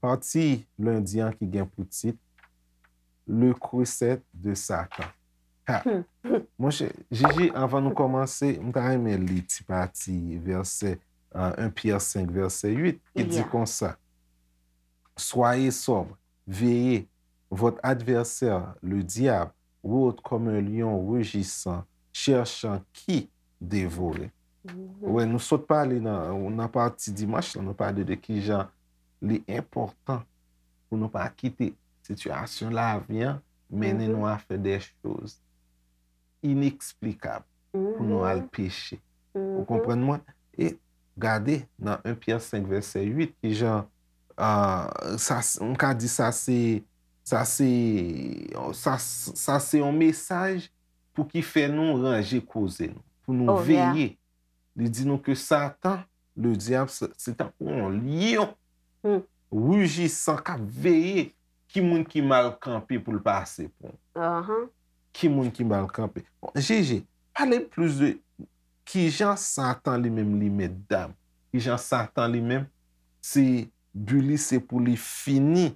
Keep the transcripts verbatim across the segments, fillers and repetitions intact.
Pati lendi an ki gen pou tit Le Creuset de Satan. Ha! Monchè, Jiji, anvan nou kòmanse, m ta renmen li ti pati vèsè, euh, un Pyè senk, vèsè uit, ki di konsa, Soyez sobres, veillez. Votre adversaire, le diable, rôde comme un lion rugissant, cherchant qui dévorer. Wè, nou sot pale nan, nan pati dimanch lan, nou pale de kijan li enpòtan pou nou pa kite sitiyasyon lavi an mennen nou a fè de choz ineksplikab pou nou al peche. Ou konprann mwen? E gade nan un Pyè senk vèsè uit, kijan, ah, sa, m ka di sa se, sa se, sa, sa se yon mesaj pou ki fè nou ranje koze nou, pou nou veye. Li di nou ke Satan, le dyab, se, se tankou yon lyon rujisan k ap veye ki moun ki mal kanpe pou l pase pran. Ki moun ki mal kanpe. Bon, Jiji, pale m plis de kijan Satan li menm li met dam. Kijan Satan li menm, se bi li se pou li fini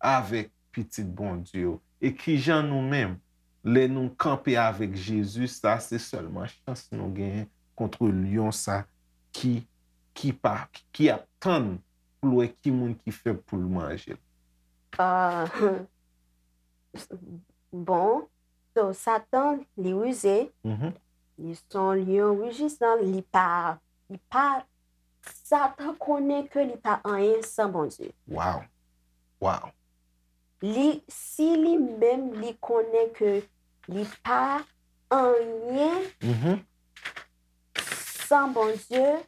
avèk pitit Bondye yo. E kijan nou menm, lè nou kanpe avèk Jezi, sa se sèlman chans nou genyen kont lyon sa ki, ki pa, ki ap tann pou l wè ki moun ki fèb pou l manje l. Ah, bon, so, Satan, li rize, li se yon lyon rijisan, li pa, li pa, Satan konnen ke li pa anyen san Bondye. Wow. Wow. Li, si li menm, li konnen ke li pa anyen san Bondye,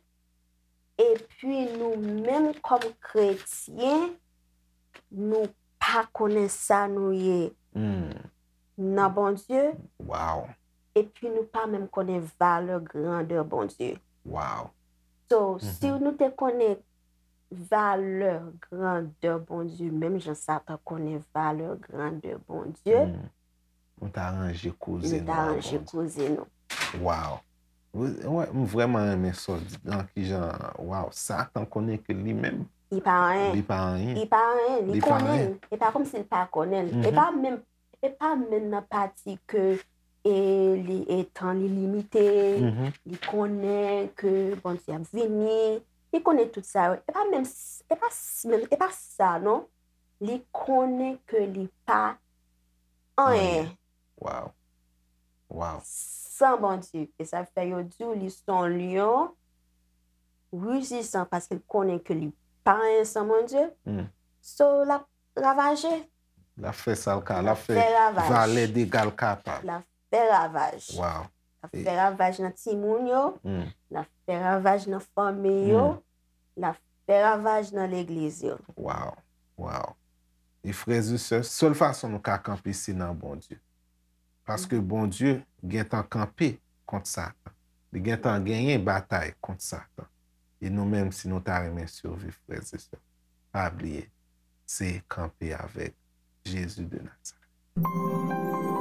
epi nou menm kòm kretyen, nou pa konnen sa nou ye nan Bondye. Wow. Epi nou pa menm konnen valè grandè Bondye. Wow. So, si nou te konnen valè grandè Bondye, menm jan Satan konnen valè grandè Bondye, nou ta ranje koze nou. Nou ta ranje koze nou. Wow. Wè, m vrèman renmen sa w di nan kijan, wow, Satan konnen ke li menm, li pa anyen. Li pa anyen. Li pa anyen, li konnen. E pa kòmsi li pa konnen. E pa menm, e pa menm nan pati ke e li, e tan li limite, li konnen ke Bondye ap vini, li konnen tout sa yo. E pa menm, e pa menm, e pa sa non. Li konnen ke li pa anyen. Wow. Wow. San Bondye. E sa fè yo di w li se yon lyon rijisan paske l konnen ke li pa anyen san Bondye. So, l ap ravaje. L ap fè sa l ka, l ap fè valè dega l kapab. L ap fè ravaj. Wow. L ap fè ravaj nan timoun yo. L ap fè ravaj nan fanmi yo. L ap fè ravaj nan legliz yo. Wow. Wow. E frè e sè, sèl fason nou ka kanpe se nan Bondye. Paske Bondye gentan kanpe kont Satan. Li gentan genyen batay kont Satan. E nou menm, si nou ta renmen siviv, frè e sè, pa bliye, se kanpe avèk Jezi de Nazarèt.